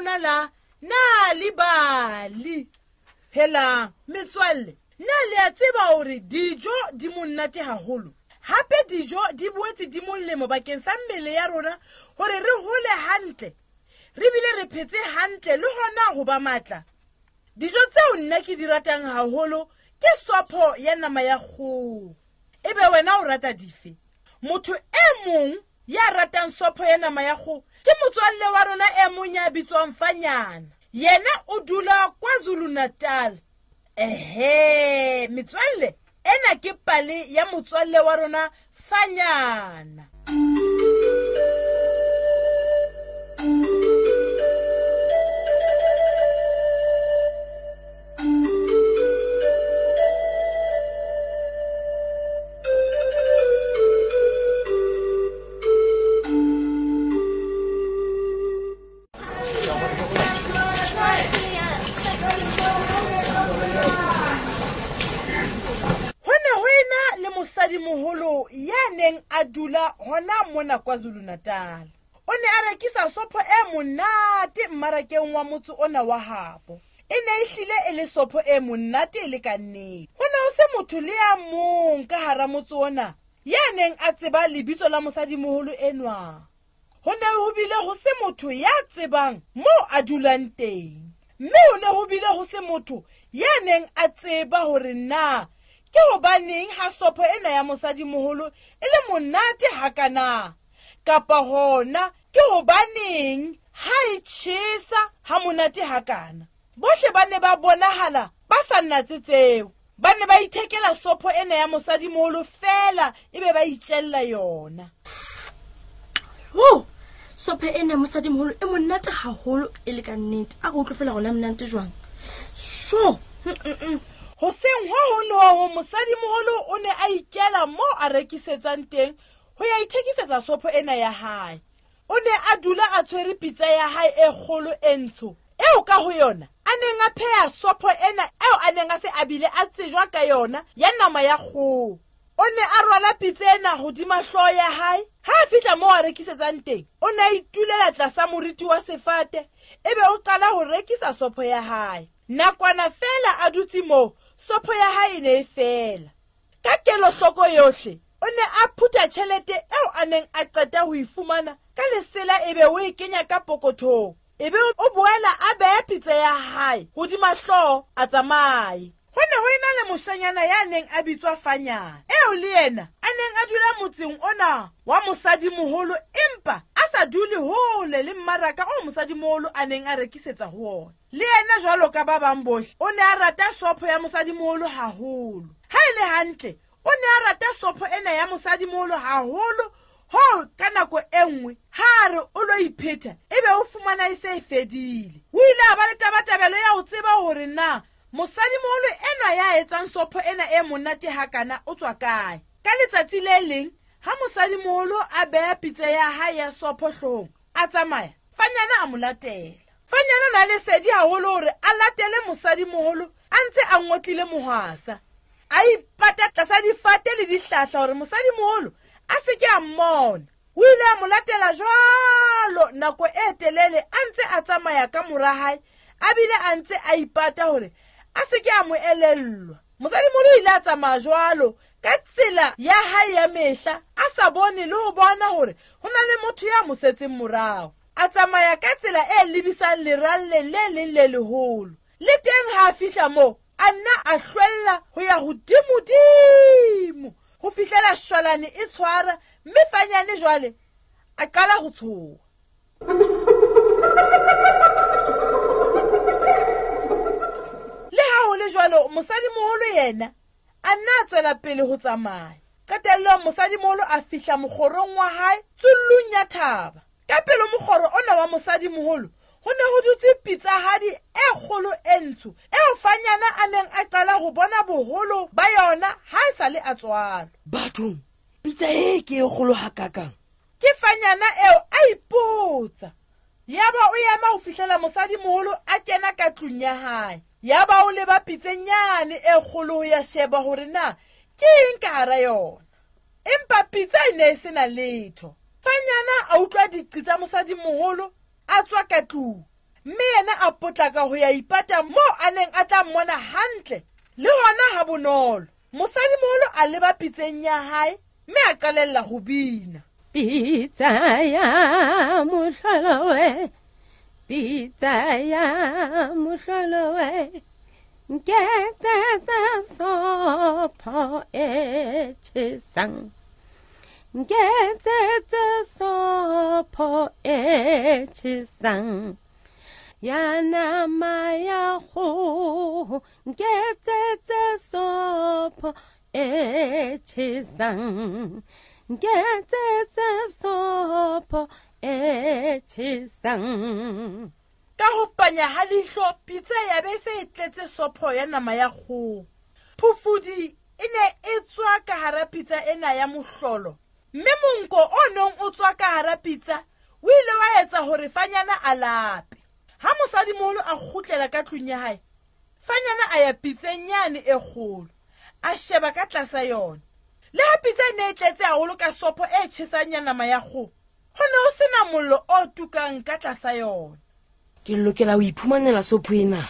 rona la Nal'ibali. Helang, metswalle, na le a tseba hore dijo di monate haholo? Hape dijo di boetse di molemo bakeng sa mmele ya rona hore re hole hantle, re bile re phetse hantle le hona ho ba matla. Dijo tseo nna ke di ratang haholo ke sopho ya nama ya kgoho. Ebe wena o rata dife? Motho e mong ya ratang sopho ya nama ya kgoho ke motswalle wa rona e mong ya bitswang Fanyana. Yena o dula KwaZulu-Natal. Ehe, metswalle, ena ke pale ya motswalle wa rona Fanyana. Ho ne ho ena le mosadimoholo ya neng a dula hona mona KwaZulu-Natal. O ne a rekisa sopho e monate mmarakeng wa motse ona wa habo. E ne e hlile e le sopho e monate e le ka nnete. Ho ne ho se motho le ya mong ka hara motse ona ya neng a tseba lebitso la mosadimoholo enwa. Ho ne ho bile ho se motho ya tsebang moo a dulang teng. Mme ho ne ho bile ho se motho ya neng a tseba hore na ke hobaneng ha sopho ena ya mosadimoholo e le monate hakana, kapa hona ke hobaneng ha e tjhesa ha monate hakana. Bohle ba ne ba bonahala ba sa natse tseo. Ba ne ba ithekela sopho ena ya mosadimoholo feela ebe ba itjella yona. Ho, sopho ena ya mosadimoholo e monate haholo e le ka nnete. A re utlwe feela rona monate jwang. So, Hoseng ho hong le ho hong mosadimoholo o ne a ikela moo a rekisetsang teng ho ya ithekisetsa sopho ena ya hae. O ne a dula a tshwere pitsa ya hae e kgolo e ntsho eo ka ho yona a neng a pheha sopho ena eo a neng a se a bile a tsejwa ka yona ya nama ya kgoho. O ne a rwala pitsa ena hodima hlooho ya hae. Ha a fihla moo a rekisetsang teng, o ne a itulela tlasa moriti wa sefate ebe o qala ho rekisa sopho ya hae. Nakwana feela a dutse moo, sopho ya hae e ne e fela. Ka kelohloko yohle, o ne a phutha tjhelete eo a neng a qeta ho e fumana ka lesela ebe o e kenya ka pokothong. Ebe o boela a beha pitsa ya hae hodima hlooho a tsamaye. Ho ne ho ena le moshanyana ya neng a bitswa Fanyana, eo le yena a neng a dula motseng ona wa mosadimoholo empa a sa dule hole le mmaraka o mosadimoholo a neng a rekisetsa ho ona. Le yena jwalo ka ba bang bohle, o ne a rata sopho ya mosadimoholo haholo. Ha e le hantle, o ne a rata sopho ena ya mosadimoholo haholo hoo ka nako e nngwe ha a re o lo iphetha ebe o fumana e se e fedile. O ile a ba le tabatabelo ya ho tseba hore na mosadimoholo enwa ya etsang sopho ena e monate hakana o tswa kae. Ka letsatsi le leng ha mosadimoholo a beha pitsa ya hae ya sopho hloohong a tsamaya, Fanyana a mo latela. Fanyana na lesedi haholo hore a latele mosadimoholo a ntse a ngotlile mohwasa. A ipata tlasa difate le dihlahla hore mosadimoholo a se ke a mmona. O ile a mo latela jwalo nako e telele a ntse a tsamaya ka mora hae, a bile a ntse a ipata hore a se ke a mo elellwa. Mosadimoholo o ile a tsamaya jwalo ka tsela ya hae ya mehla, a sa bone le ho bona hore ho na le motho ya mo setseng morao. A tsamaya ka tsela e lebisang leralleng le leng le leholo. Le teng ha a fihla moo, a nna a hlwella ho ya hodimodimo ho fihlela shwalane e tshwara, mme Fanyane jwale a qala ho tshoha. Le ha ho le jwalo, mosadimoholo yena a nna a tswela pele ho tsamaya. Qetellong mosadimoholo a fihla mokgorong wa hae tsullung ya thaba. Ka pele mokgoro ona wa mosadimoholo ho ne ho dutse pitsahadi e kgolo e ntsho eo Fanyana a neng a qala ho bona boholo ba yona ha e sa le a tswalwa. Bathong, pitsa e ke e kgolo hakakang? Ke Fanyana eo a ipotsa. Yaba o ema ho fihlela mosadimoholo a kena ka tlung ya hae. Yaba o leba pitsenyane e kgolo ho ya sheba hore na ke eng ka hara yona. Empa pitsa e ne e sena letho. Fanyana a utlwa diqi tsa mosadimoholo a tswa ka tlung. Mme yena a potlaka ho ya ipata moo a neng a tla mmona hantle le hona ha bonolo. Mosadimoholo a leba pitseng ya hae mme a qalella ho bina. Pitsa ya mohlolo we, pitsa ya mohlolo we, nketsetsa sopho e tjhesang, nketsetsa sopho e tjhesang, ya nama ya kgoho, nketsetsa sopho e tjhesang, nketsetsa sopho e tjhesang. Ka ho panya ha leihlo, pitsa ya be se e tletse sopho ya nama ya kgoho. Phofudi e ne e tswa ka hara pitsa ena ya mohlolo, mme monko o neng o tswa ka hara pitsa o ile wa etsa hore Fanyana a lape. Ha mosadimoholo a kgutlela ka tlung ya hae, Fanyana a ya pitseng yane e kgolo, a sheba ka tlasa yona. Le ha pitsa e ne e tletse haholo ka sopho e tjhesang ya nama ya kgoho, ho ne ho sena mollo o tukang ka tlasa yona. Ke lokela ho iphumanela sopho ena.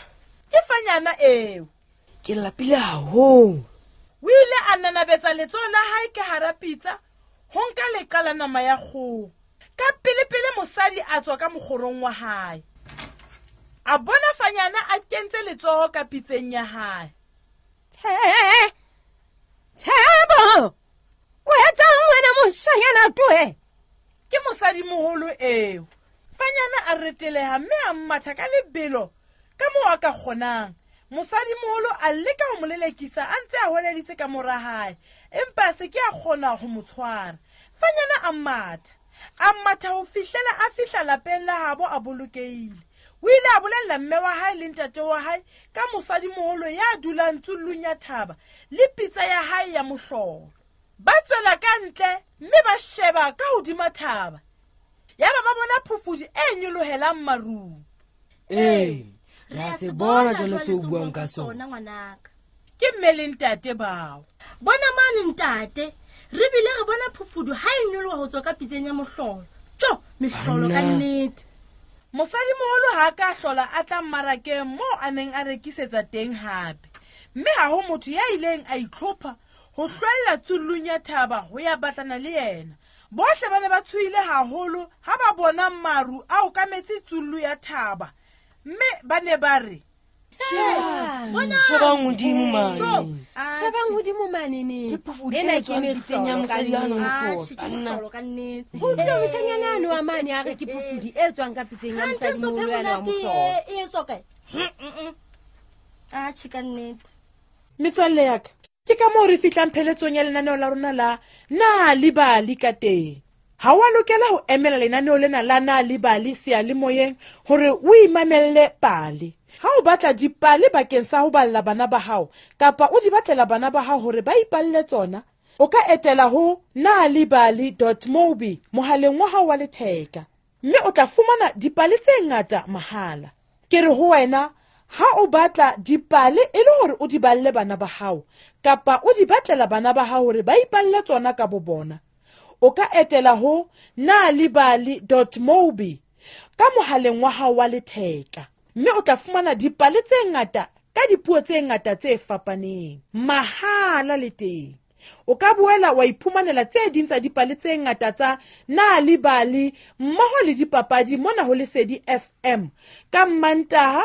Ke Fanyana eo. Ke lapile haholo. O ile a nanabetsa letsoho la hae ka hara pitsa ho nka leqa la nama ya kgoho. Ka pelepele mosadi a tswa ka mokgorong wa hae. A bona Fanyana a kentse letsoho ka pitseng ya hae. Tjhe, Tjhebo, o etsang wena moshanyana toe? Ke mosadimoholo eo. Fanyana a reteleha mme a matha ka lebelo ka moo a ka kgonang. Mosadimoholo a leka ho mo lelekisa a ntse a hweleditse ka mora hae, empa a se ke a kgona ho mo tshwara. Fanyana a matha, a matha ho fihlela a fihla lapeng la habo a bolokehile. O ile a bolella mme wa hae le ntate wa hae ka mosadimoholo ya dulang tsullung ya thaba le pitsa ya hae ya mohlolo. Ba tswela ka ntle mme ba sheba ka hodima thaba. Yaba ba bona phofudi e nyolohelang marung. Ee, re a se bona jwale seo o buang ka sona. Ngwanaka. Ke mme le ntate bao. Bona mane ntate, re bile re bona phofudu ha e nyoloha ho tswa ka pitseng ya mohlolo. Tjo, mehlolo ka Banna. nnete. Mosadimoholo ha a ka hlola a tla mmarakeng moo a neng a rekisetsa teng hape. Mme ha ho motho ya ileng a itlhopha ho hlwella tsullung ya thaba ho ya batlana le yena. Bohle ba ne ba tshohile haholo ha ba bona maru a okametse tsullu ya thaba, mme ba ne ba re, Shebang hodimo mane. Shebang hodimo mane ne. Ke phofudi Ena e ke tswang pitseng ya mehlolo mosadi ka ya nang nnete. mohlolo. Ke Banna. mehlolo ka nnete. Ho utlwile moshanyana ano wa mane a re ke phofudi e tswang ka pitseng ya Hanthe mosadimoholo sopho e yana wa monate mohlolo. e etswa kae? Atjhe, ka nnete. Metswalle ya ka, ke ka moo re fihlang pheletsong ya lenaneo la rona la Na le Bali ka teng. Ha wa lokela ho emela lenaneo lena la Na le Bali seyalemoyeng hore o imamelle pale. Ha o batla dipale bakeng sa ho balla bana ba hao kapa o di batlela bana ba hao hore ba ipalle tsona, o ka etela ho nalibali.mobi mohaleng wa hao wa letheka, mme o tla fumana dipale tse ngata mahala. Ke re ho wena, ha o batla dipale e le hore o di balle bana ba hao kapa o di batlela bana ba hao hore ba ipalle tsona ka bo bona, o ka etela ho nalibali.mobi ka mohaleng wa hao wa letheka, mme o tla fumana dipale tse ngata ka dipuo tse ngata tse fapaneng mahala le teng. O ka boela wa iphumanela tse ding tsa dipale tse ngata tsa Nalibali mmoho le dipapadi mona ho Lesedi FM ka Mmantaha,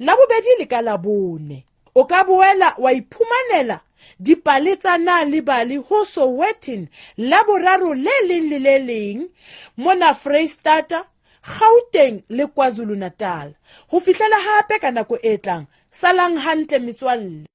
Labobedi le ka Labone. O ka boela wa iphumanela dipale tsa Nalibali ho Sowetan Laboraro le leng le le leng mona Freistata, Gauteng le KwaZulu-Natal. Ho fihlela hape ka nako e tlang, salang hantle metswalle.